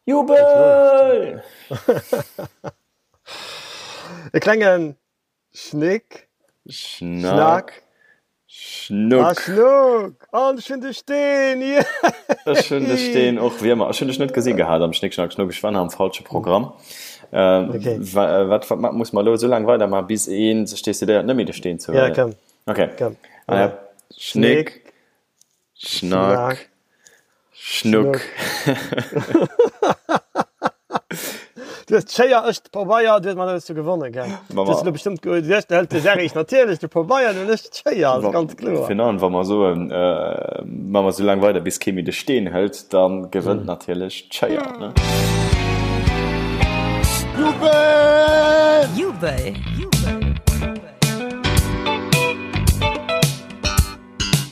Jubel! E klenge Schnick, Schnack, Schnuck. A Schnuck! An ech hunn de Steen! Yeah! Ech hunn de Steen och, wéi ëmmer. Ech hunn dech net gesi gehat am Schnick, Schnack, Schnuck. Ech war nach am falsche Programm. Okay. Wat, wat muss mer elo esou laang weidermaachen, bis ee sech decidéiert, net méi de Steen ze huelen? Ja, komm. Okay. Komm. Schnick, Schnack, Schnuck. Du hues d'Schéier, ech de Pabeier, du hues mat alles du gewonnen, gell? Du hues elo bestëmmt ge, du hues hëlt de Serrig natierlech de Pabeier an ech d'Schéier, ass ganz kloer. Fir an wa mer soen, ma mer sou laang weider bis kee méi de Steen hëlt, da gewënnt natierlech d'Schéier, ne? Jubel! Jubel!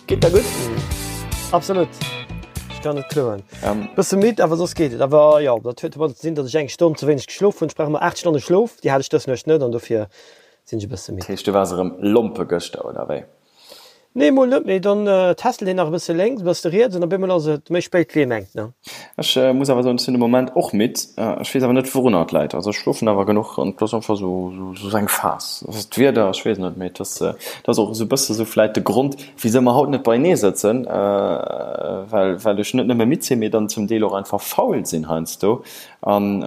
Geet der gutt? Absolut. Ech kann net kloen. Ähm. Bësse midd, awer soss geet et. Awer jo, dat huet domadder ze dinn, datt ech eng Stonn ze wéineg geschlof hunn. Ech brauch ëmmer 8 Stonne Schlof, déi hat ech dës Nuecht net an dofir sinn ech e bësse midd. Dat heescht, du waars erëm lompe gëschter, oder wéi? Nee, mol net, mee dann tässelt een nach e bësse lénks, e bësse riets an op eemol ass et méi spéit wéi ee mengt, ne? Ech muss awer soen, ech sinn de Moment och midd. Ech weess awer net, wourunner et läit. Also ech schlofen awer genuch an et ass einfach esou eng Phas. Ass et d'Wieder? Ech weess net, mee et ass, et ass och esou e bësse sou vläit de Grond, wisou mer haut net beienee sëtzen, well, well ech net nëmme midd sinn, mee dann zum Deel och einfach faul sinn heiansdo. An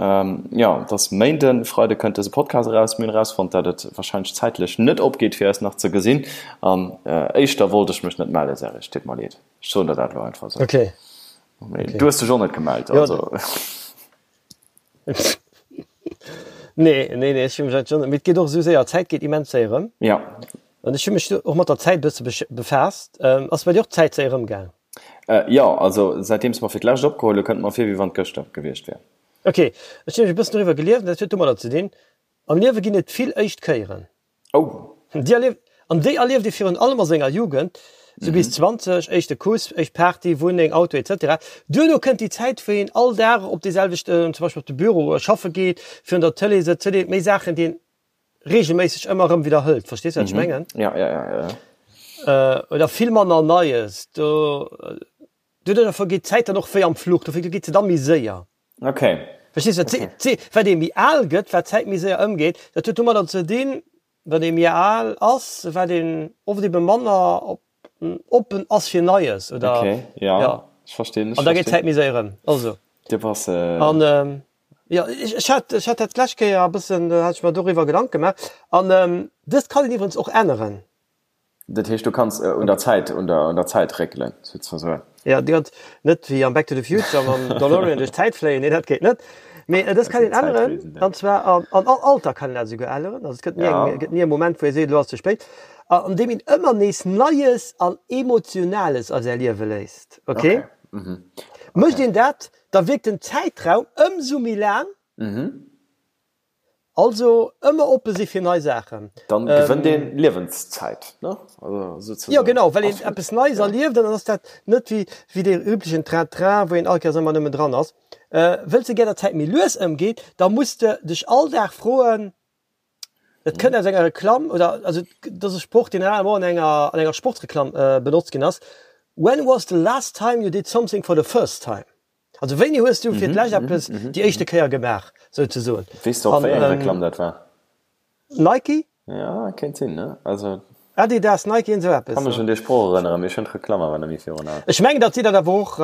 jo, et ass Méinden, Freide kënnt dëse Podcast eraus. Mir hunn erausfonnt, dat et warscheinlech zäitlech net opgeet, fir eis nach ze gesinn. An éischter wollt ech mech net mellen, Serge, et deet mer leed. Ech soen der dat elo einfach esou. Okay. Mee du hues dech och net gemellt, also. Nee, nee, nee, ech hu mech eigentlech och net, mee et geet och esou séier, d'Zäit geet immens séier ëm. Ja. An ech hu mech och mat der Zäit e bësse befaasst. Ass bei dir och d'Zäit séier ëmgaang? Jo, also säitdeems mer fir d'lescht opgeholl hu kënnt mer vir wéi wann et gëschter gewiescht wär. Ok, ech hunn nämlech e bëssen doriwwer gelies an dat huet domadder ze dinn, am Liewe ginn et vill éischt Kéieren. Oh! Déi erlieft, an déi erlieft ee virun allem a senger Jugend, sou bis 20, éischte Kuss, éischt Party, Wunneng, Auto etc. Duerno kënnt déi Zäit wou een all Dag op dee selwechten, zum Beispill op de Büro schaffe geet, virun der Tëlee sëtzt, huet ee méi Saachen déi een regelméisseg ëmmer erëm widderhëlt. Verstees du, wat ech mengen? Ja, ja, ja, ja. Oder vill manner Neies. Do, doduerch vergeet d'Zäit dann och wéi am Fluch. Dofir geet se da méi séier. Okay. Verstees du? Okay. D'Zee, wat ee méi al gëtt, wat d'Zäit méi séier ëmgeet. Dat huet domadder ze dinn, wat ee méi al ass, wat een oft ebe manner op oppen ass fir Neies oder okay, ja, ja. Ech verstinn, ech An da geet d'Zäit méi séier ëm. Also. Dir bass äh... An ähm, jo, ech, ech hat, ech hat dat d'lescht Kéier e bëssen, do hat ech mer doriwwer Gedanke gemaach. An ähm, dëst kann een iwwerens och änneren. Dat heescht, du kanns äh, un der Zäit, un der, un der Zäit réckelen, souzesoen. Ja, déi ganz, net wéi am Back to the Future mam DeLorean duerch d'Zäit fléien, nee, dat geet net. Mee äh, dëst kann een änneren, an zwar an, an all Alter kann een dat esouguer änneren. Also et gëtt ni eng, Ja. gëtt ni e Moment, wou ee seet, elo ass ze spéit. An deem een ëmmer nees Neies an Emotionales a säi Liewe léisst. Ok? Okay. Mhm. Mécht een dat, da wierkt den Zäitraum ëmsou méi laang. Mhm. Also ëmmer oppe si fir nei Saachen. Dann gewënnt een Liewenszäit, ne? Also souzesoen. Jo genau, well een eppes Neies erlieft an dann ass dat net wéi wéi dee üblechen Train-Train, wou een all Kéiers ëmmer nëmmen dran ass. Wëlls de gär datt d'Zäit méi lues ëmgeet, da muss de dech all Dag froen, Dat kënnt aus enger Reklamm oder also dat ass e Sproch, deen rarement an enger an enger Sportsreklamm benotzt ginn ass, When was the last time you did something for the first time? Also wéini hues du fir d'lescht eppes déi éischte Kéier gemaach, souzesoen. Weess de och wéi eng Reklamm dat war? Nike? Ja, kéint sinn, ne? Also. Adidas, Nike, iergend esou eppes. Kann mech un dee Sproch erënneren, mee ech hunn d'Reklamm awer net méi virun Aen. Ech mengen, datt si dat awer och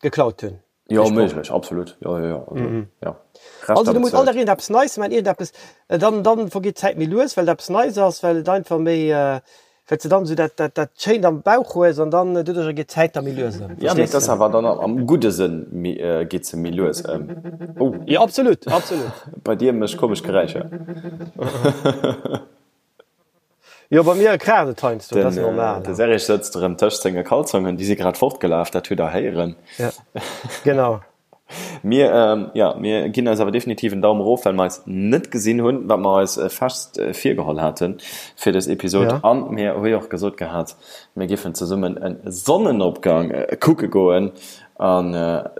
geklaut hunn. Jo, méiglech, absolut. Jo, jo, jo. Also, mm. ja. Also du muss all Dag iergendeppes Neies man, iergendeppes, äh, dann, dann vergeet d'Zäit méi lues, well et eppes Neies ass, well et einfach méi, äh, well du dann esou dat, dat, dat Schéint am Bauch hues an dann äh, doduercher geet d'Zäit da méi lues ëm. Ja, mee et ass awer dann am gudde Sënn méi, äh, geet se méi lues ëm. Oh. Jo, absolut, absolut. Bei dir mécht komesch Geräischer. Jo, bei mir kraacht et heiansdo, dat ass normal. Den Serge sëtzt erëm tëscht senge Kalzongen, déi si grad fortgelaf, dat hutt der héieren. Ja, genau. Mir, jo, mir ginn eis awer definitiv en Daum erof, well mer eis net gesinn hunn, wat mer eis fest virgeholl hate fir dës Episod. Ja. An mir hu jo och gesot gehat, mir giffen zesummen e Sonnenopgang kucke goen. An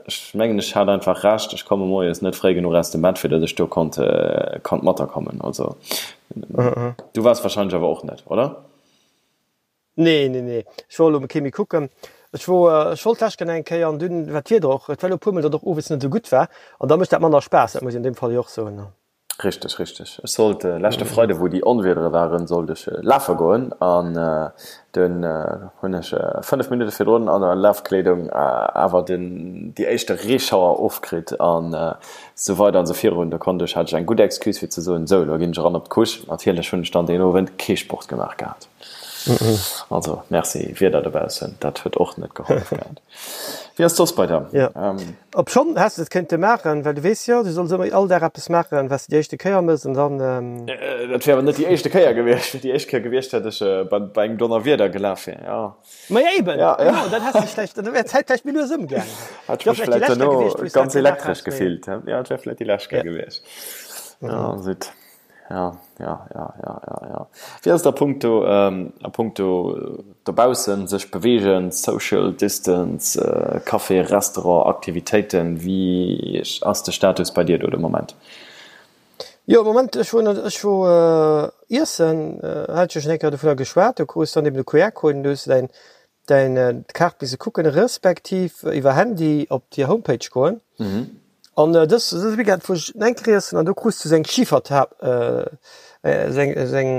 ech mengen, ech hat einfach Recht, ech komme moies net fréi genuch aus dem Bett, fir datt ech do konnt, konnt matakommen. Also, du waars wahrscheinlech awer och net, oder? Nee, nee, nee. Ech wor elo kee méi kucken. Ech wor, ech wollt d'lescht Kéier eng Kéier an dunn war d'Wieder och, et war elo e puermol, datt och owes net esou gutt war an da mécht dat manner Spaass, dat muss een an deem Fall jo och soen. Richteg, richteg. Ech sollt leschte Freide wou déi Onwiedere waren, sollt ech lafe goen an dunn hunn ech 5 Minutte virdrun an der Lafkleedung awer den déi éischte Reeschauer ofkritt an esou weider an esou virun. Do konnt ech, hat ech eng gutt Excuse fir ze soen, sou elo ginn ech eran op d'Couche. Natierlech hunn ech dann deen Owend kee Sport gemaach gehat. Also merci Wieder dobaussen, dat huet och net gehollef gehat. Wéi ass soss bei der? Ja. Obschonn häss de et kéinte maachen, well du weess jo, du solls ëmmer all Dag eppes maachen, wat s de déi éischte Kéier mëss an dann. Dat wär awer net déi éischte Kéier gewiescht. Fir déi éischt Kéier gewiescht, hätt ech bei engem Donnerwieder gelaf wier, jo. Ma jo eben, genau, dann häss de vläicht, dann wär d'Zäit vläicht méi lues ëmgaangen. Hätt ech mech vläicht duerno ganz elektresch gefillt, jo, et wär vläicht déi lescht Kéier gewiescht. Jo, zut. Ja, ja, ja, ja, ja, ja. Wéi ass et a punkto, a punkto dobaussen sech beweegen, Social Distance, Café, Restaurant, Aktivitéiten, wéi ass de Status bei dir do de Moment? Jo, am Moment, ech wor, ech wor iessen, hat ech jo schonn eng Kéier dovunner geschwat, do krus dann eben de QR-Code an du hues däin däin d'Kaart misse kucken, respektiv iwwer Handy op déi Homepage goen. An dës dëse Weekend wor ech eng Kéier iessen an do krus du sou eng Schiferta sou eng sou eng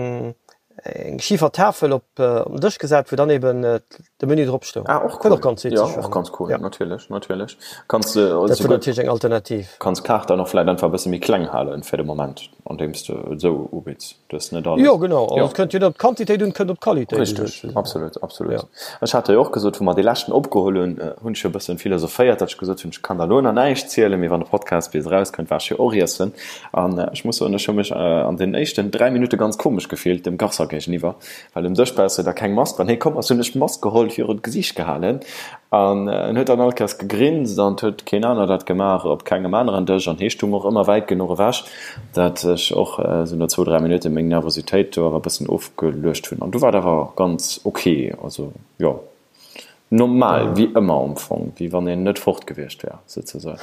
eng Schifertafel op op den Dësch gesat, wou dann eben de Menü drop stoung. Ah, och Wat cool. och ganz Ja, witzeg och war. ganz cool, Ja. natierlech, natierlech. Kanns de Dat wor souguer natierlech eng Alternativ. kanns d'Kaart dann och vläit einfach e bësse méi kleng halen fir de Moment, andeems de et esou ubidds. Du hues net alles. Jo, genau. Also Jo. et kënnt jo net op d'Quantitéit un, et kënnt op d'Qualitéit un, Richteg, sozesoen. absolut, absolut. Ja. Ech hat der jo och gesot, wou mer dee leschten opgeholl hunn, hunn ech jo e bëssen philosophéiert, datt ech gesot hunn, ech kann der elo nach näischt zielen, mee wann de Podcast bis erauskënnt, war ech jo och iessen. An ech muss soen, ech hu mech an den éischten 3 Minutte ganz komesch gefillt dem Garçon géigeniwwer, well um Dësch brauchs de da keng Mask. Wann hie komm ass, hunn ech d'Mask geholl, virun d'Gesiicht gehalen an en huet dann all Kéiers gegrinst an et huet keen aner dat gemaach op kengem aneren Dësch an hie stung och ëmmer wäit genuch ewech, dat ech och esou no zwou, 3 Minutte meng Nervositéit do awer e bëssen ofgeluecht hunn an du war et awer ganz ok. Also jo, normal wéi ëmmer am Fong, wéi wann een net fort gewiescht wär souzesoen.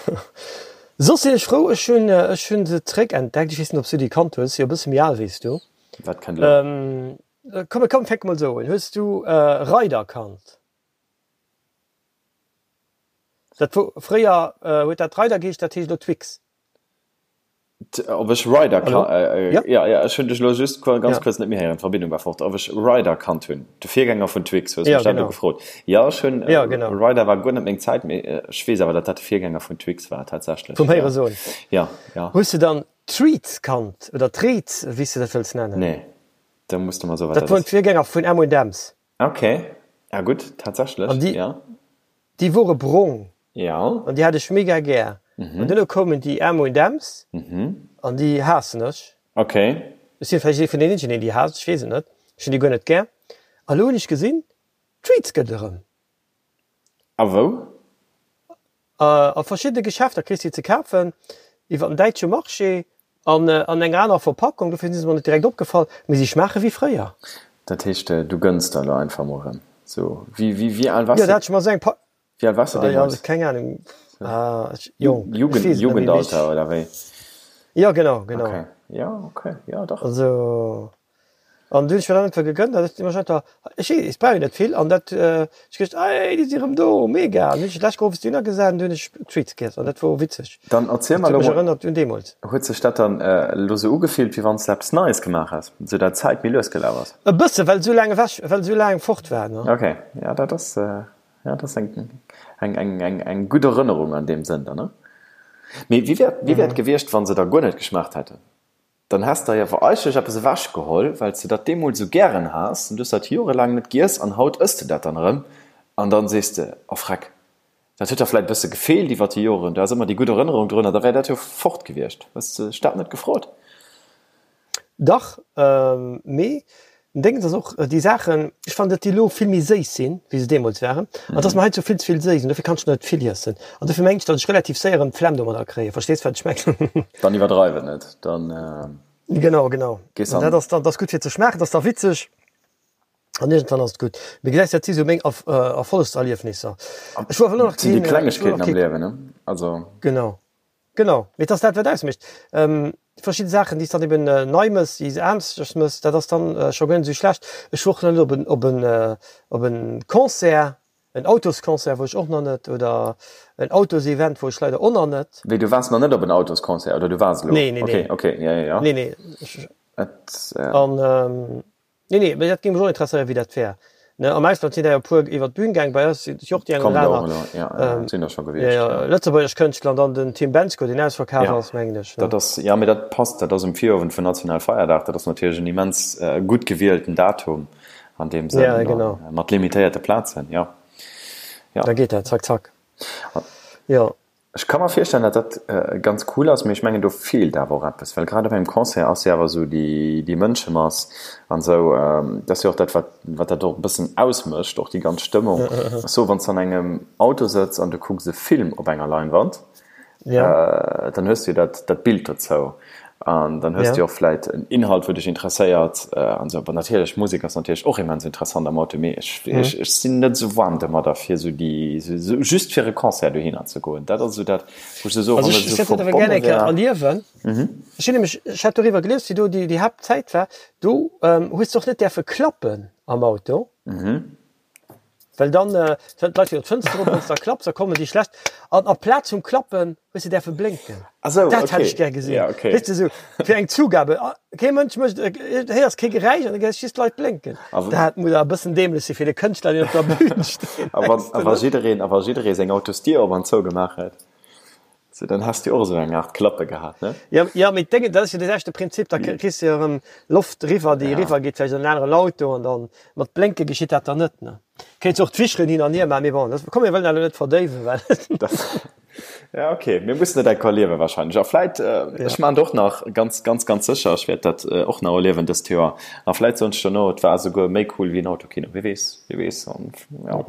Soss sinn ech frou, ech hunn ech hunn se zréck entdeckt. Ech weess net, ob s du déi kannt hues, si jo e bësse méi al wéi s du. Wat kënnt elo? Komm, komm, fänke mol esou un. Hues du Raider kannt? Dat wor fréier huet dat Raider geheescht, dat heescht elo Twix. Ob ech Ryder Hallo? äh, Ja. ja, ja, ech hunn dech elo just ganz Ja. kuerz net méi héieren, d'Verbindung war fort. Ob ech Ryder kannt hunn, de Virgänger vun Twix, hues du Ja, mech dat elo genau. gefrot? Ja, ech hunn, Ja, genau. Ryder war guer net meng Zäit, mee ech weess awer, datt dat de Virgänger vun Twix war tatsächlech. Vum Ja. Héiere soen. Ja, ja. Hues du dann Treats kannt oder Treets, wéi s du dat wëlls nennen? Nee, da muss du mer soen, wat Dat dat woren ass. d'Virgänger vun M&M's. Okay, ja gutt, tatsächlech, An déi, ja. déi wore brong. Ja. An déi hat ech mega gär. An duerno koumen déi M und M's an déi haassen ech. Okay. Ech sinn vläicht ee vun den eenzegen, deen déi haasst, ech weess et net. Ech hunn déi guer net gär. A lo hunn ech gesinn, Treats gëtt et erëm. A wou? A verschiddene Geschäfter kriss de déi ze kafen, iwwer den däitsche Marché an an enger anerer Verpackung. Dofir si se mer net direkt opgefall, mee si schmaache wéi fréier. Dat heescht, du gënns der elo einfach mol erëm? Sou, wéi, wéi, wéi al waars Jo, de? dat hat ech mer esou eng Pa. Wéi al waars de Ah, ja, deemools? keng Ahnung. Ah, ech, jong, ech Jugend, weess et net méi, mee Jugendalter ech, oder wéi? ja, genau, genau. Okay, ja, okay, ja, dach. Also, an du hunn ech mir dann einfach gegönnt, an ech ech einfach, ech weess, ech brauch jo net vill, an dat, ech geduecht, ey, déi si rëm do, mega! An hunn ech d'lescht Woch Dinner gesat an du hunn ech Treats giess, an dat wor witzeg. Dann erziel Dat mer huet elo mech mol, erënnert un deemools. huet sech dat dann elo sou ugefillt, wéi wann s de eppes Neies gemaach häss, sou dat d'Zäit méi lues gelaf ass? E bësse, well esou laang ewech, well esou laang fort war, ne? Okay, ja, dat ass, Ja, dat ass eng, eng, eng, eng, eng gutt Erënnerung an deem Sënn dann, ne? Mee wéi wär, wéi wär et gewiescht, wa se der guer net geschmaacht hätten? Dann häss der jo awer eigentlech eppes ewechgeholl, well s de dat deemools esou gären has, an du hues dat jorelaang net giess an haut ëss de dat dann erëm an dann sees de, Oh Freck, dat huet der vläit e bësse gefeelt iwwer déi Joren, do ass ëmmer déi gutt Erënnerung drun, an da wär dat jo fort gewiescht. Hues de dech dat net gefrot? Dach, mee den Déngens ass och, déi Saachen, ech fannen, datt déi elo vill méi séiss sinn, wéi se deemools waren, an datt mer hei zu vill ze vill séiss, an dofir kann ech net vill iessen. An dofir mengen ech, datt ech relativ séier erëm d'Flemm domadder kréien. Verstees, wat ech mengen? Dann iwwerdreiw et net, dann Genau, genau. gees An an. dat ass dann, dat ass gutt fir ze schmaachen, dat ass da witzeg an iergendwann ass et gutt. Mee gesäis, dat si sou meng Erfollegserliefnisser. Ech wor awer elo nach Dat sinn déi keen, ech wor Klengegkeeten nach am kee. Liewen, ne? Also. Genau. Genau, mee et ass dat wat ausmécht. Verschidde Saachen déi s dann eben nei mëss, déi s aneschters mëss, dat ass dann scho guer net esou schlecht. Ech wor och nach net op en op en op en Concert, En Autosconcert wor ech och nach net oder en Autosevent wor ech leider och nach net. Wéi, du waars nach net op en Autosconcert oder du waars elo? Nee, nee, nee. Okay, okay, ja, ja, ja. Nee, nee. Et, An, nee, nee, mee dat géing mech och interesséieren, wéi dat wär. Ne, am Ausland sinn der jo e puer iwwer d'Bün gaang, bei eis sinn jo och déi eng Kommen oder der och aner, elo, ja, ja, sinn der scho ja, gewiescht, ja, ja. lëtzebuergesch Kënschtler an dann den Tim Bendzko, deen ausverkaf Ja, ass, mengen ech, ne? dat ass, ja, mee dat passt, dat ass um Virowend vun Nationalfeierdag, dat ass natierlech en immens gutt gewielten Datum. An deem Sënn, Ja, genau. mat limitéierte Plazen, jo. Jo. Da geet dat zack, zack. Jo. Ech ka mer virstellen, datt dat ganz cool ass, mee ech mengen, do feelt awer och eppes, well grad op engem Concert ass jo awer esou déi, déi Mënschemass an esou, dat ass jo och dat, wat, wat dat och e bëssen ausmécht, och déi ganz Stëmmung. Ech soe, wann s de an engem Auto sëtz an du kucks e Film op enger Leinwand, Ja. Dann hues du jo dat, dat Bild dozou an dann hues du jo och vläit en Inhalt, wou dech interesséiert an esou. Bon, natierlech, Musek ass natierlech och immens interessant am Auto, mee ech, ech, ech sinn net esou waarm domadder, fir esou déi, esou just fir e Concert dohinner ze goen. Dat ass esou dat, wou ech esou soen, Also wann ech, et ech esou hätt dat awer gär verbonne eng Kéier wär. erliewen. Ech hunn nämlech, ech hat doriwwer gelies, wéi do déi, déi Haaptzäit war, do hues de och net däerfe klappen am Auto. Well dann d'Leit fir d'Fënster op, wann s da klapps, da kommen déi schlecht. An amplaz vum Klappen hues de däerfe blénken. Ah sou, Dat hätt okay. ech gär gesinn. Ja, okay. Weess de, sou fir eng Zugabe. Kee Mënsch mécht, héiers kee Geräisch an da gesäis just d'Leit blénken. A w- Dat muss awer e bëssen däämlech si fir de Kënschtler, deen op der Bühn steet, A wann, mengs a de wa net? jiddereen, a wa jidderee seng Autosdier op an zou gemaach hätt, sou, dann häss de och esou eng Aart Klappe gehat, ne? Jo, jo, mee d'Déngen, dat ass jo dee selwechte Prinzip, da kriss de jo erëm Loft eriwwer, déi Ja. eriwwer geet vläicht an en aneren Auto an dann mat Blénke geschitt dat dann net, ne? Kéints och d'Wischeren hin an hier maachen, mee bon, dat, komm mir wëllen dat elo net verdéiwen, well. Dat, ja, okay, mir mussen et enker erliewen wahrscheinlech. A vläit, ech Ja. maachen et och nach, ganz, ganz, ganz sécher, ech wäert dat och nach erliewen dëst Joer. A vläit soen ech dono, et war esouguer méi cool wéi en Autokino, wie weess, wie weess. An Jo.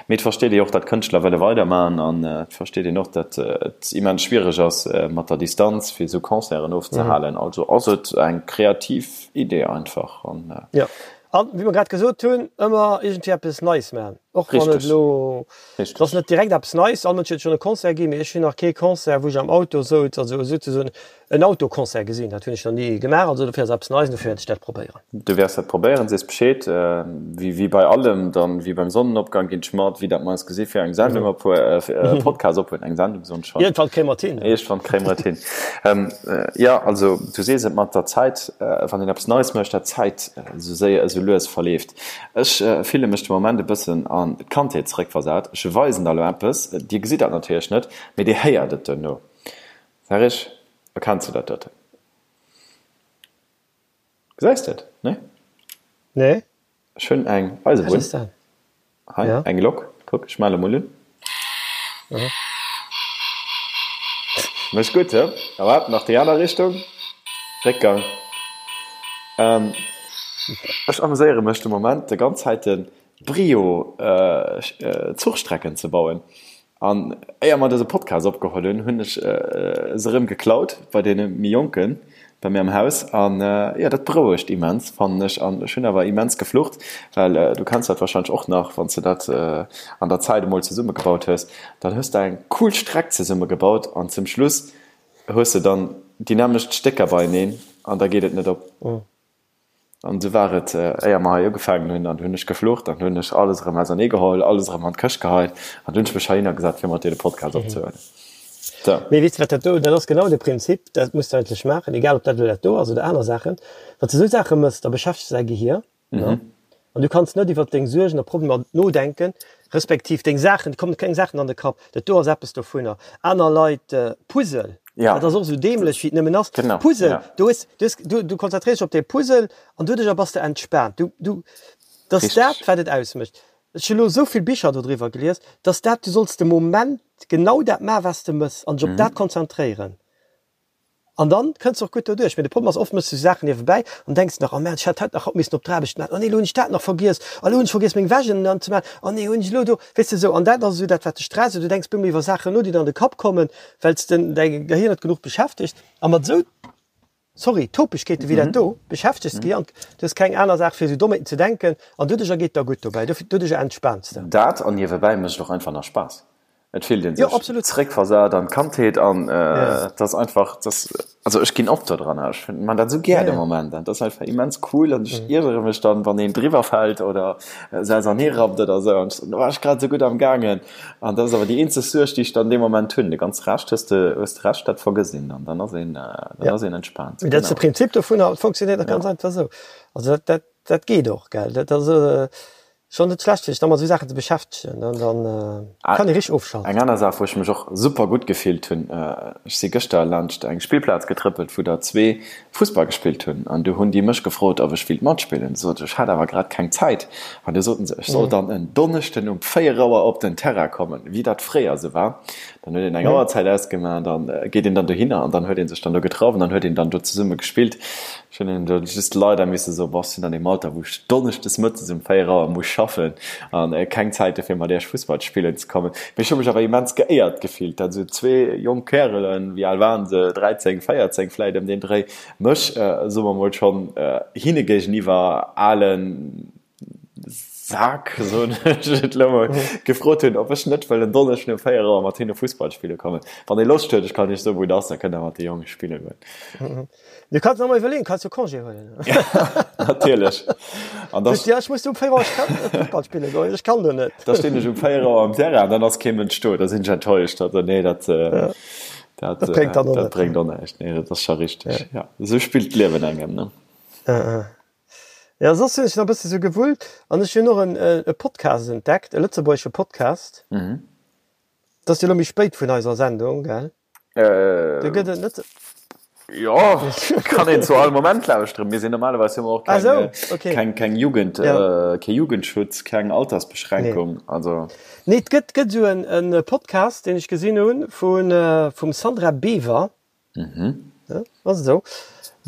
Mee et versteet ee jo och, datt Kënschtler wëlle weidermachen an et versteet een och, datt et immens schwiereg ass mat der Distanz fir esou Concerten ofzehalen. Also ass et eng kreativ Idee einfach an. Jo, an wéi mer grad gesot hunn, ëmmer iergendwéi eppes Neies maachen, och wann et Richteg. elo, et ass Richteg. net direkt eppes Neies, all Mënsch huet schonn e Concert ginn, mee ech hunn nach kee Concert, wou ech am Auto souz, also souzesoen En Autoconcert gesinn, dat hunn ech nach ni gemaach, also dofir ass eppes Neies an dofir wäert ech dat probéieren. Du wäers dat probéieren, sees Bescheed. Wéi bei allem, dann wéi beim Sonnenopgang ginn ech mat, wéi dat mer eis gesi fir eng Sendung op, fir e Podcast ophuelen, eng Sendung soen ech schonn. Iergendwann kréie mer et hin. Iergendwann kréie mer et hin. Jo, also du sees et mat der Zäit, wann een eppes Neies mécht, dat d'Zäit esou séier, esou lues verleeft. Ech fille mech de Moment e bëssen an d'Kandheet zeréckversat. Ech weisen der elo eppes, dir gesitt dat natierlech net, mee dir héiert et duerno. Serge, erkenns du dat doten? Gesäis de et? Nee? Nee. Ech hunn eng Eisebunn. Wat ass dat? Hei, Ja. eng Lok. Kuck, ech male mol un. Aha. Mécht gutt, he? A waart, nach déi aner Richtung. Réckgang. Ähm, ech ameséiere mech de Moment de ganz Zäiten Brio Zuchstrecken ze bauen. An éier mer dëse Podcast opgeholl hunn, hunn ech se erëm geklaut bei deene méi Jonken bei mir am Haus. An jo, dat berouegt immens, fannen ech. An ech hunn awer immens geflucht, well du kenns dat warscheinlech och nach, wann s de dat an der Zäit emol zesummegebaut hues, dann hues de eng cool Streck zesummegebaut an zum Schluss hues de dann déi nämmlecht Stécker beieneen an da geet et net op. An esou war et, éier mer hei ugefaangen hunn, an du hunn ech geflucht, an du hunn ech alles erëm ausernee geholl, alles erëm an d'Këscht geheit, an du hunn ech mech heihinner gesat, fir mat dir de Podcast opzehuelen. Sou. Mee weess de, wat dat do, dat ass genau de Prinzip, dat muss de eigentlech maachen, egal ob dat elo dat do ass oder aner Saachen, Wann s de esou Saache méchs, da beschäftegs de däi Gehier, ne? An du kanns net iwwert deng Suergen a Problemer nodenken, respektiv deng Saachen, et kommen keng Saachen an de Kapp. Dat do ass eppes dovunner. Aner Leit, Puzzle, Ja. dat ass och esou däämlech wéi et nëmmen ass. Genau, Puzzle, ja. du hues, du hues, du, du konzentréiers dech op dee Puzzle an doduercher bass de entspaant. Du, du, dat ass dat, Richteg. wat et ausmécht. Ech hu lo esou vill Bicher dodriwwer gelies, dass dat, du solls de Moment genau dat maachen, wat s de mëss an dech op dat konzentréieren. An dann kënns de och gutt doduerch. Mee de Problem ass, oft mëss du Saachen niewebäi an denks nach, oh Merde, ech hätt haut nach haut missen op d'Aarbecht maachen, oh nee, elo hunn ech dat nach vergiess, oh elo hunn ech vergiess meng Wäsch ënnen ze maachen, oh nee, hunn ech elo do, weess de esou. An dat ass esou dat, wat dech stresst. Du denks bemol iwwer Saachen no, déi der an de Kapp kommen, well s de däi Gehir net genuch beschäftegt. A mat esou, sorry, Topegkeete wéi dat do beschäftegs de d'Gehir an du hues keng aner Saach fir esou Dommheeten ze denken an doduercher geet der gutt dobäi, doduercher entspaans de. Dat an niewebäi mécht et och einfach nach Spaass. Et fillt een sech zréckversat an d'Kandheet an et ass einfach, dass, also ech ginn op do dran, ech man dat esou gär de Moment an et ass einfach immens cool an ech iergere mech dann, wann een driwwer fält oder se ausernee rappt oder esou an ech war ech grad esou gutt am gaangen an dat ass awer déi eenzeg Suerg, déi ech dann dee Moment hunn. De ganze Rescht hues de, hues de Recht, dat vergëss een dann, dann ass een, dann ass een entspaant. Dat ass de Prinzip dovunner, et funktionéiert och ganz einfach esou. Also dat, dat, dat geet och, gell, dat ass. Schon net schlecht fir sech da mat esou Saachen ze beschäftegen, dann kann ee richteg ofschalten. Eng aner Saach wou ech mech och super gutt gefillt hunn, ech si gëschter laanscht eng Spillplaz getrëppelt wou der zwee Fussball gespillt hunn an du hunn déi mech gefrot ob ech willt matspillen. Sot ech hat awer grad keng Zäit an du soten se ech soll dann en Donneschden um 4 Auer op den Terrain kommen, wéi dat fréier esou war. Dann huet een eng Auerzäit ausgemaach, dann geet een dann dohinner an dann huet ee sech dann do getraff an dann huet een dann do zesumme gespillt. Ech hunn hinnen do just leider misse soen, Boah, ech sinn an deem Alter, wou ech donneschdes mëttes um 4 Auer muss schaffen an keng Zäit hu fir mat iech Fussball spillen ze kommen. Mee ech hu mech awer immens geéiert gefillt, dat esou zwee jonk Kärelen, wéi al waren se, 13, 14 vläit ëm deen Dréi, mech, soe mer mol, schonn hinne géigeniwwer alen, Sak, soen ech et elo mol, gefrot hunn, ob ech net wëll en Donneschden um 4 Auer mat hinne Fussball spille kommen. Wann ee Loscht huet, ech kann iech soen, wou et ass, da kënnt der mat de Jonge spille goen. Du kanns nach mol iwwerleeën, kanns jo Congé huelen. Natierlech. An da. Ja, ech muss um 4 Auer Fussball spille goen, ech kann do net. Da stinn ech um 4 Auer am Terrain an dann ass kee Mënsch do, da sinn ech enttäuscht. Also nee, dat, dat, dat bréngt dann och net. Dat bréngt och näischt. Nee, dat ass scho richteg. Ja, esou spillt d'Liewen engem, ne? Jo, soss hunn ech nach e bësse sou gewullt an ech hunn och en e Podcast entdeckt, e lëtzebuergesche Podcast. Dat ass jo elo méi spéit vun eiser Sendung, gell? Do gëtt et net. Jo, kann een zu all Moment lauschteren. Mir sinn normalerweis hu mer och keng, okay. keng, keng Jugend, ja. kee Jugendschutz, keng Altersbeschränkung. Nee. Also. Nee, et gëtt, gëtt sou en, en Podcast, deen ech gesinn hunn, vun, vum Sandra Bever. Mhm. Ja, ass esou.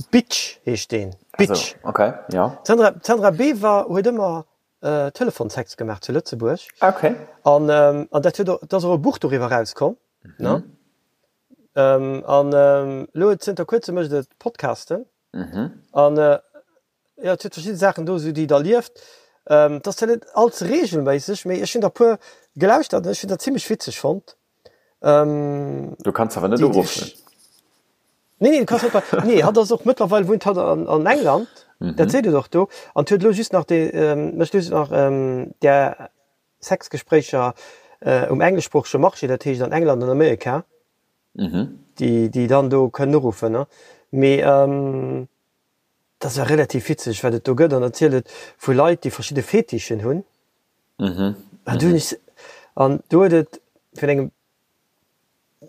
Bitch heescht deen. Bitch. Also, okay, ja. D'Sandra, d'Sandra Bever huet ëmmer äh, Telefonsex gemaach zu Lëtzebuerg. Okay. An, ähm, an dat huet och, et ass och e Buch doriwwer erauskomm. Mhm. Ne? Ähm, an ähm, elo zënter kuerzem mécht et Podcasten. Mhm. An äh, Jo, et huet verschidde Saachen do esou, déi et erlieft. Et ass zwar net all ze reegelméisseg, mee ech hunn der puer gelauschtert an ech hunn dat zimmlech witzeg fonnt. Du kanns awer net uruffen. Nee, nee, du kanns net bei, nee, hatt ass och mëttlerweil wunnt hatt an an England, dat seet et och do, an huet elo just nach dee, mécht elo just nach där Sexgespréicher um engleschsproochege Marché, dat heescht an England an Amerika, déi déi dann do kënnen uruffen, ne. Mee Dat ass relativ witzeg wat et do gëtt an erzielt et vu Leit déi verschidde Fetischen hunn. An do hunn ech an do huet et vun engem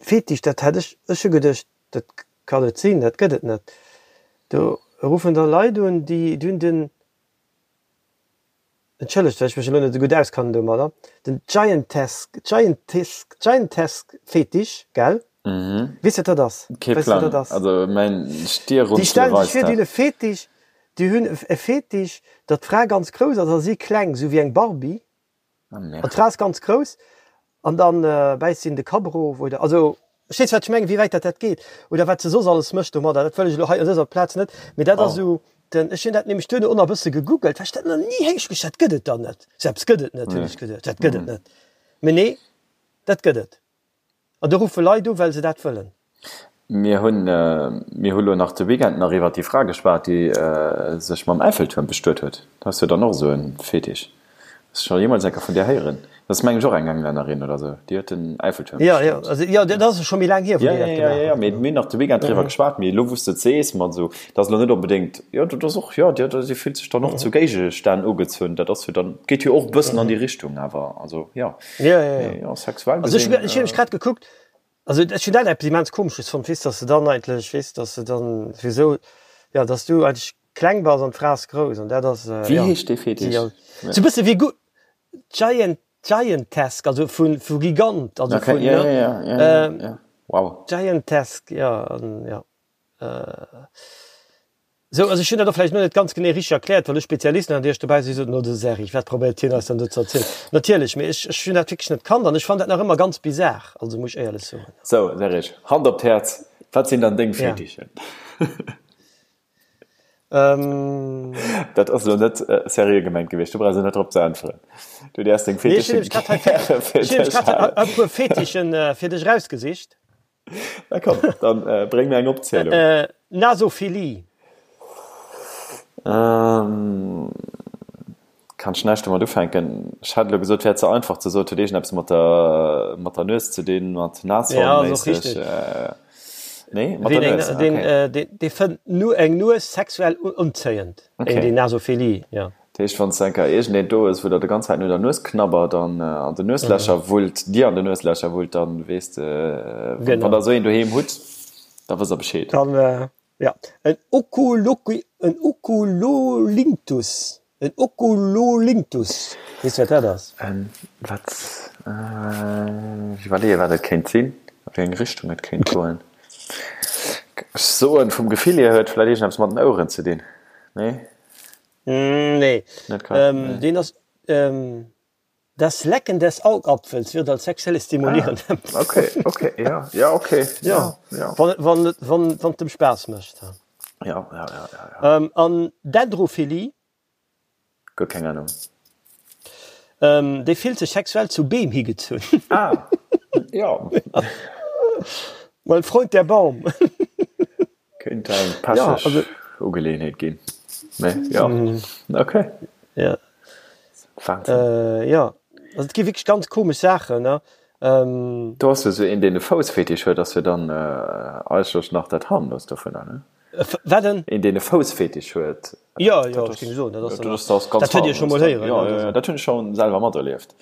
Fetisch, dat hat ech, ech hu geduecht dat kann net sinn, dat gëtt et net. Do ruffen da Leit un déi hunn den Entschëllegt, well ech mech elo net esou gutt auskannen domadder, den Giantesque, Giantesque, Giantesque Fetisch, gell? Weess de wat dat ass? Kee Weess de wat Plang. dat ass? Also mäin Déi Stierrunzele stellen sech weist vir, déi dat. hunn e Fetisch, déi hunn e Fetisch, datt d'Fra ganz grouss ass a si kleng, esou wéi eng Barbie. Ah, merde. An d'Fra ass ganz grouss an dann bäisst si en de Kapp erof oder, also verstees wat ech mengen, wéi wäit dat dat geet oder wat se soss alles mécht domadder, dat wëll ech elo hei un dëser Plaz net, mee dat ass esou den, ech hunn dat nämlech duerno och nach e bësse gegoogelt, well ech dat nach ni héich, ech dat gëtt et dann net, sou eppes gëtt et net, hunn ech geduecht, dat gëtt et net, mee nee, dat gëtt et. An do ruffe Leit u well se dat wëllen. Mir hunn, mir hu lo nach de Weekend nach iwwert déi Fra geschwat, déi sech mam Äiffeltuerm bestuet huet. Dat ass jo dann och esou e Fetisch. Hues de scho jeemools eng Kéier vun där héieren? Dat ass mengen ech och eng Englännerin oder esou, déi huet den Äiffeltuerm Jo, jo, also jo, dat ass scho méi laang hier, wou Jo, déi jo, dat jo, gemaach jo, huet. mee mir hunn nach de Weekend driwwer geschwat. Mee elo wou s de et sees, mat esou, dat ass elo net onbedéngt, jo, dat ass och, jo, déi déi fillt sech dann och zu Géigestänn ugezunn. Dat ass jo dann, geet jo och e bëssen an déi Richtung awer, also jo. Ja, ja, ja. Ja, sexuell Also ech, gesinn. ech hunn nämlech grad gekuckt, also ech hunn dat eppes immens Komesches fonnt, weess, dass de dann eigentlech, weess, dass de dann wieso, ja, dass du eigentlech kleng bass an d'Fra ass grouss an dat ass, Wéi ja, heescht dee si Fetisch? ass sou e bësse wéi Gu Giant, Giantesque, also vu, vu Gigant, also Okay, vun, ja, ne, ja, ja, ja, ja, ja. Wow. Giantesque, ja, an ja. Sou, also ech hunn dat och vläicht elo net ganz genee richteg erkläert, well ech Spezialisten an Iech dobäi si soten, oh de Serge, wat probéiert hien eis dann do ze erzielen? Natierlech, mee ech, ech hunn dat wierklech net kannt an ech fannen dat nach ëmmer ganz bizar, also muss ech éierlech soen. Sou, Serge, Hand op d'Häerz, wat sinn dann deng Ja. Fetichen? Ähm. Dat ass elo net seriö gemengt gewiescht, du brauchs elo net drop ze äntweren. Du däerfs deng Fetichen gäre fir dech halen. Ech hunn e puer Fetichen fir dech erausgesicht. Na komm, dann bréng mir eng Opzielung. Nasophilie. Ähm, kann ech näischt domat ufänken. Ech hätt elo gesot, wär ze einfach ze soen, et huet iergendeppes mat der, mat der Nues ze dinn, mat Nashorn-méisseg. Nee, mat der Nues, okay. Dee fënnt eng Nues sexuell unzéiend, okay. Déi Nasophilie, jo. Dat heescht, wann s enker iergendeen do hues, wou der de ganz Zäit no der Nues knabbert an an den Nueslächer wullt, dir an den Nueslächer wullt, dann weess de, wann der esou een doheem hutt, da wësst der Bescheed. Dann, jo, en Oculoqui, en Oculolinctus, en Oculolinctus, weess de wat dat ass? En wat? Ech iwwerleeë wat et kéint sinn, a wéi eng Richtung et kéint goen. Ech soen, vum Gefill hier huet vläicht iergendeppes mat den Oueren ze dinn, nee? Nee, deen ass Das Lecken des Augapfels wird als sexuelle stimulierend ah, empfunden. Okay, okay, ja, ja, okay. Ja, ja. Wann, wann, wann, wann et dem Spaass mécht. Ja, ja, ja, ja, ja. Ähm, an Dendrophilie? Guer keng Ahnung. Ähm, déi fillt sech sexuell zu Beem higezunn. Ah, ja. Mein Freund der Baum. Kéint eng pecheg Ugeleeënheet ginn, mee jo, ok. Ja. Wahnsinn. Jo, also et gi wierklech ganz komesch Saachen, ne. Do ass jo esou een, deen e Foussfetisch huet, ass jo dann eigentlech nach dat harmloost dovunner, ne? Wat en? Een, deen e Foussfetisch huet. Jo, jo, ech géing soen, dat ass dann nach, dat huet Dir scho mol héieren, ne? Jo, jo, dat hunn ech scho selwer materlieft.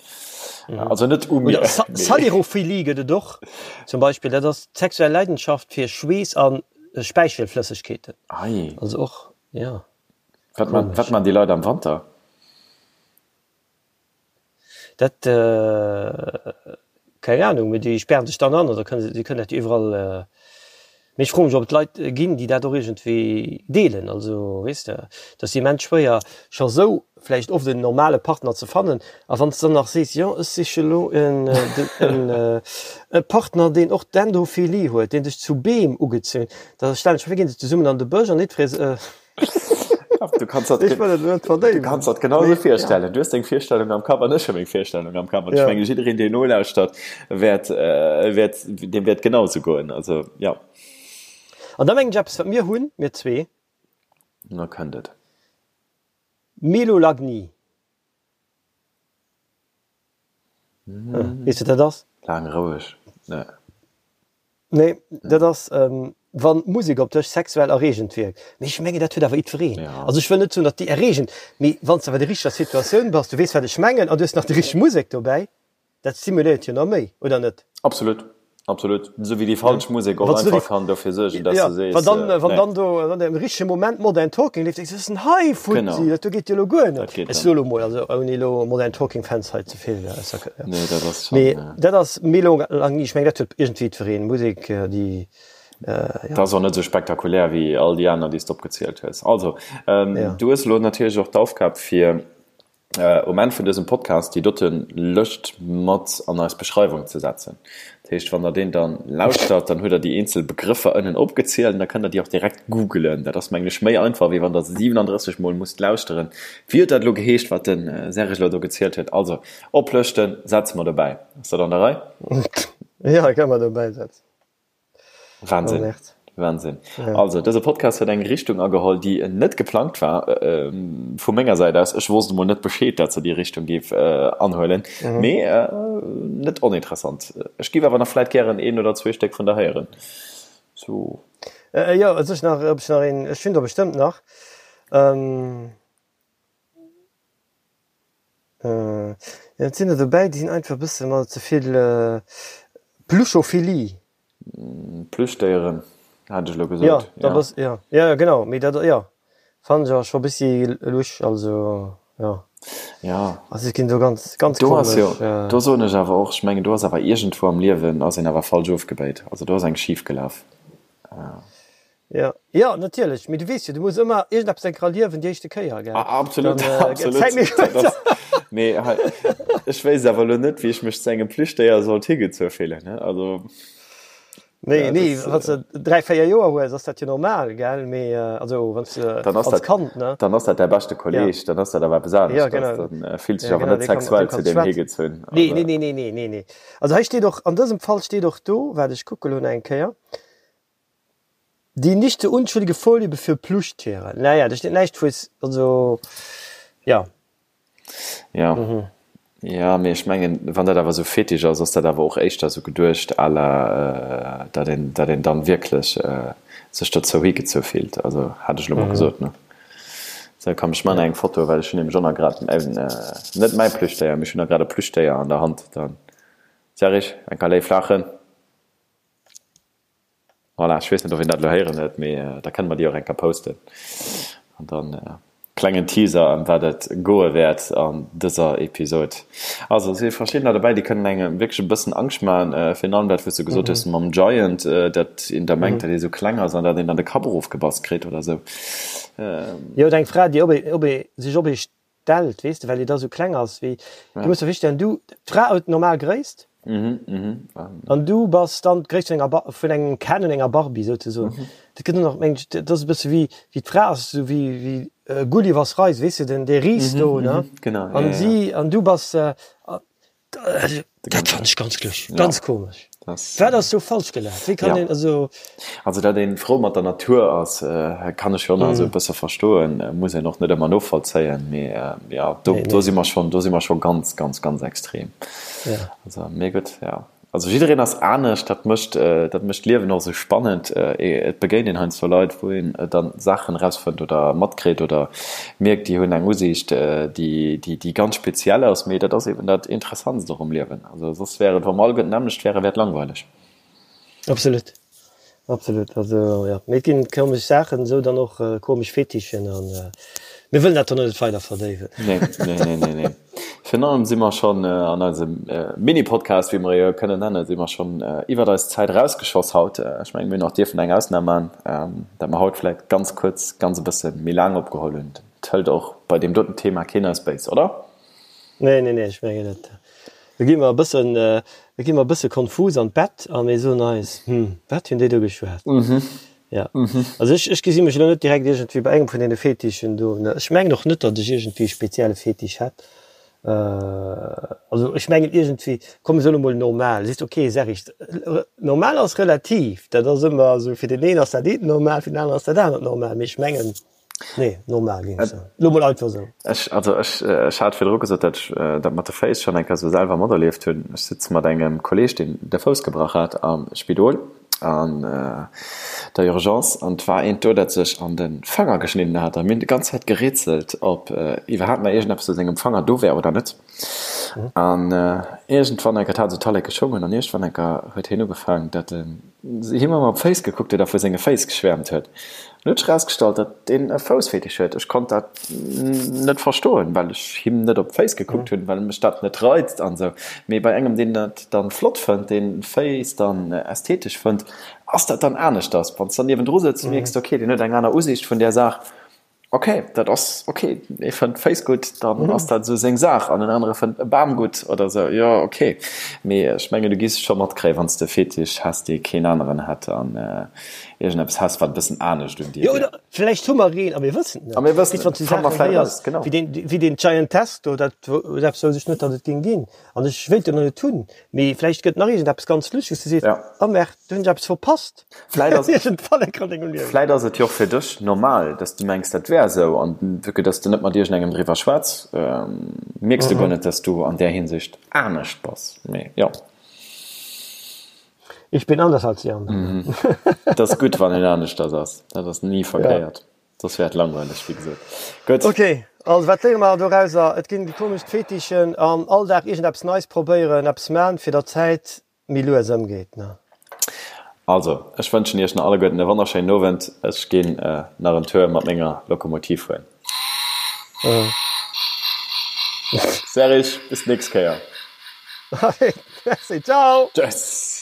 Also net u mir. Oder Salirophilie gëtt et och zum Beispill, dat ass d'sexuell Leidenschaft fir Schweess a Späichelflëssegkeeten. Ei. Also och, jo. Wat man, wat man déi Leit am Wanter? Dat, keng Ahnung, mee déi spären sech dann an oder kënne, déi kënnen dat jo iwwerall. Mee ech froe mech, ob et Leit ginn, déi dat och iergendwéi deelen. Also, weess de, et ass immens schwéier, scho sou vläicht oft en normale Partner ze fannen. A wann s de dann nach sees, jo, ech siche lo en, e Partner, deen och Dendrophilie huet, dee sech zu Beem ugezunn, da stellen ech mer vir, ginn se zesummen an de Bësch an jiddweree. Du kanns dat, Ech wëll et net verdéiwen. Du kanns dat genau esou virstellen. Du hues deng Virstellung am Kapp an ech hu meng Virstellung am Kapp. An ech menge jiddereen, deen nolauschtert, wäert, wäert, deem wäert genau esou goen. Also, jo. An da mengen ech eppes, wat mir hunn, mir zwee. Na, kënnt et. Melolagnie. Weess de, wat dat ass? Laang roueg, ne. Nee, dat ass, wann d'Musek op dech sexuell erreegend wierkt. Mee ech mengen, dat huet awer jiddwereen. Also ech wëll net soen, datt déi erreegend, mee wann s de awer an der richteger Situatioun bass, du weess, wat ech mengen, an du hues nach déi richteg Musek dobäi, dat stimuléiert jo nach méi, oder net? Absolut, absolut. Esou wéi déi falsch Musek och einfach kann dofir suergen, datt s de sees, nee. Wann dann do an deem richtege Moment Modern Talking leeft, denkst du, wat ass denn hei futti, dat do geet jo elo guer net. Ech soe lo mol, also ouni elo Modern Talking Fans hei ze vill, Nee, dat ass schon. Mee dat ass méi lo lang ni. Ech meng dat huet iergendwéi jiddwereen. Musek déi jo. Dat ass och net esou spektakulär wéi all déi aner déi s de opgezielt hues. Also du hues elo natierlech och d'Aufgab fir um Enn vun dësem Podcast déi dote Lëscht mat an eis Beschreiwung ze setzen. Dat heescht wann der deen dann lauschtert, dann hutt der déi eenzel Begrëffer ënnen opgezielt an da kënnt der déi och direkt googelen. Dat ass mengen ech méi einfach wéi wann der 37 mol musst lauschteren. Wéi huet dat elo geheescht wat de Serge elo do gezielt huet? Also Oplëschten setze mer dobäi. Ass dat an der Rei? Jo, kann mer dobäi setzen. Wahnsinn. Oh, Wahnsinn. Ja. Also, dëse Podcast huet eng Richtung ageholl, déi net geplangt war äh, vu menger Säit aus. Ech wosst emol net Bescheed, dat se déi Richtung géif äh, anhuelen. Mhm. Mee äh, net oninteressant. Ech géif awer nach vläit gären een oder zwee Stéck vun der héieren. So. Äh, jo, also ech nach, ob ech nach een, ech hunn der bestëmmt nach. Ähm, Jo et sinn der dobäi, déi sinn einfach e bësse mer ze vill Pluschophilie. Plüschdéieren hat ech elo gesot. Jo, da bass, jo, jo genau, mee dat, jo, fannen ech awer scho e bëssi lusch, also jo. Jo. Also et ginn do ganz, ganz komesch. Do ass jo, do soen ech awer och, ech mengen do ass awer iergendwou am Liewen ass een awer falsch ofgebéit, also do ass eng schif gelaf. Jo, jo, natierlech, mee du weess jo, du muss ëmmer iergendeppes enker erliewen déi éischte Kéier, gell? Absolut, absolut. Mee hei, ech wéisst awer elo net, wéi ech mech zu engem Plüschdéier sollt higezu fillen, ne? Also. Nee, nee, wann s de 3, 4 Joer hues, ass dat jo normal, gell? Mee also wann s de Dann ass als dat, Kand, ne? dann ass dat däi beschte Ja. Kolleeg, dann ass dat awer eppes Ja, aneschters. genau. Dann fills dech Ja, awer genau, net dee kann, mat deem sexuell zu kanns du deem schwätzen. higezunn. Nee, Also, nee, nee, nee, nee, nee, nee. Also hei steet och, an dësem Fall steet och do, waart ech kucke lo nach eng Kéier, Die nicht so unschuldige Vorliebe für Plüschtiere. Naja, do steet näischt vu, also ja. Ja. Jo, mee ech mengen, wann dat awer esou Fetisch ass, ass dat awer och éischter esou geduecht à la, datt een, datt een dann wierklech sech dozou higezou fillt. Also hat ech elo mol gesot, ne? Sou, komm, ech man eng Foto, well ech hunn nämlech och nach grad net mäi Plüschdéier, mee ech hunn nach grad e Plüschdéier an der Hand. Dann, Serge, eng Kéier léif laachen. Voilà, ech weess net, ob een dat elo héieren huet, mee da kënne mer déi och eng Kéier posten. An dann klengen Teaser, ëm wat et goe wäert an dëser Episod. Also et si verschiddener dobäi, déi kënnen engem wierklech e bëssen Angscht maachen. Virun allem dat, wou s de gesot hues mam Giant, dat een da mengt, datt ee sou kleng ass an datt een dann de Kapp erofgebass kritt oder sou. Jo, oder eng Fra, déi op ee, op ee, sech op ee stellt, weess de, well déi da sou kleng ass wéi, du muss der virstellen, du, d'Fra huet normal Gréisst an du bass dann d'Gréisst vun enger Ba, vun engem Ken und enger Barbie souzesoen. Dat gëtt och nach, meng ech, dat ass e bësse wéi, wéi d'Fra ass esou wéi, wéi Gullivers Reise, weess de, den, dee Ris do, ne, an si, an du bass, Dat fannen ech ganz lusch, ganz komesch. Wat ass do falsch gelaf? Wéi kann een also. Also datt een frou mat der Natur ass, kann ech jo nach esou e bësse verstoen, muss een och net ëmmer novollzéien, mee jo do do si mer schonn, do si mer scho ganz, ganz, ganz extrem. Also mee gutt, jo. Also jiddereen ass anescht, dat mécht dat mécht d'Liewen och esou spannend. Et begéint een heiansdo Leit, wou een dann Saachen erausfënnt oder matkritt oder mierkt, déi hunn eng Usiicht, déi déi déi ganz speziell ass. Mee dat ass eben dat Interessantst och um Liewen. Also soss wär et, wa mer alleguerten d'nämmlecht wären, wär et langweileg. Absolut, absolut. Also jo, mee et ginn komesch Saachen, esou dann och komesch Fetichen an mir wëllen dat dann och net weider verdéiwen. Nee, nee, nee, nee, nee. Virun allem si mer schonn an eisem Mini-Podcast, wéi mer e jo kënnen nennen, si mer schonn iwwert eis Zäit erausgeschoss haut. Ech mengen, mir hunn och dierfen eng Ausnam maachen, dat mer haut vläicht ganz kuerz, ganz e bësse méi laang opgeholl hunn. Et hëlt och bei deem doten Thema keen eis béis, oder? Nee, nee, nee, ech mengen net. Do gi mer e bëssen, do gi mer e bësse konfus an d'Bett a mir soen eis, Hm, wat hunn déi do geschwat? Ja. Also ech, ech gesi mech elo net direkt iergendwéi bei engem vun deene Fetichen do, ne. Ech mengen och net, datt ech iergendwéi e spezielle Fetisch hätt. Also ech mengen iergendwéi, komm ech soen emol normal, sees de ok, Serge, normal ass relativ, dat ass ëmmer esou, fir deen een ass dat eent normal, fir den aneren ass dat anert normal, mee ech mengen, nee, normal géing ech soen, elo mol einfach esou. Ech, also ech, ech hat virdru gesot, datt ech dat mat de Féiss schonn eng Kéier esou selwer materlieft hunn. Ech sitze mat engem Kolleeg, deen de Fouss gebrach hat, am Spidol an der Urgence an 't war eent do, dat sech an de Fanger geschnidden hat a mir hunn déi ganz Zäit gerätselt, ob iwwerhaapt nach iergendeppes u sengem Fanger do wär oder net. An iergendwann enker, 't hat esou Talleke schongen an iergendwann enker huet hien ugefaangen, dat en him ëmmer op d'Féiss gekuckt huet a vu senge Féiss geschwäermt huet. An huet sech erausgestallt, datt deen e Foussfetisch huet. Ech konnt dat net verstoen, well ech him net op d'Féiss gekuckt hunn, well mech dat net reizt an esou. Mee bei engem, deen dat dann flott fënnt, deen Féiss dann ästhetesch fënnt, ass dat dann aneschters. Wann s dann niewendru sëtz, mierks de, okay, deen huet eng aner Usiicht vun där Saach. Ok, dat ass ok, ee fënnt Féiss gutt, dann ass dat esou seng Saach, an en anere fënnt e Bam gutt oder esou, jo ok. Mee ech mengen du giss scho matkréien, wann s de e Fetisch häss, dee keen aneren hätt an iergendeppes häss, wat e bëssen anescht un dir Jo, wier. oder vläicht hu mer een a mir wëssen et net. A mir wëssen Weess, wann et, s du fanne mer Saachen vläicht héiers eraus, genau. wéi deen, wéi deen Giant Test do, dat eppes wousst ech net, datt et géing ginn an ech wéilt en och net hunn, mee vläicht gëtt nach iergendeppes ganz Luscheges, du sees, Ja. Oh Merde, do hunn ech eppes verpasst. Vläit ass, Iergendwann eng Kéier an dengem Liewen. vläit ass et jo och fir dech normal, dass du mengs, dat wär esou, an vue que dass du net mat iergendengem driwwer schwätz, mierks du guer net, dass du an där Hinsicht anescht bass. Mee jo. Ich bin anders als die anderen. Et ass gutt, wann een aneschters ass. Dat ass ni verkéiert. Soss wär et langweileg, wéi gesot. Gutt. Ok, also wat léiere mer dorauser? Et ginn déi komesch Fetichen an all Dag iergendeppes Neis probéieren, eppes man, fir der Zäit méi lues ëmgeet ne. Also, ech wënschen iech nach alleguerten e wonnerschéinen Owend. Ech ginn nach en Tour mat menger Lokomotiv fueren. Serge, bis d'nächst Kéier. Merci, ciao! Tschüss!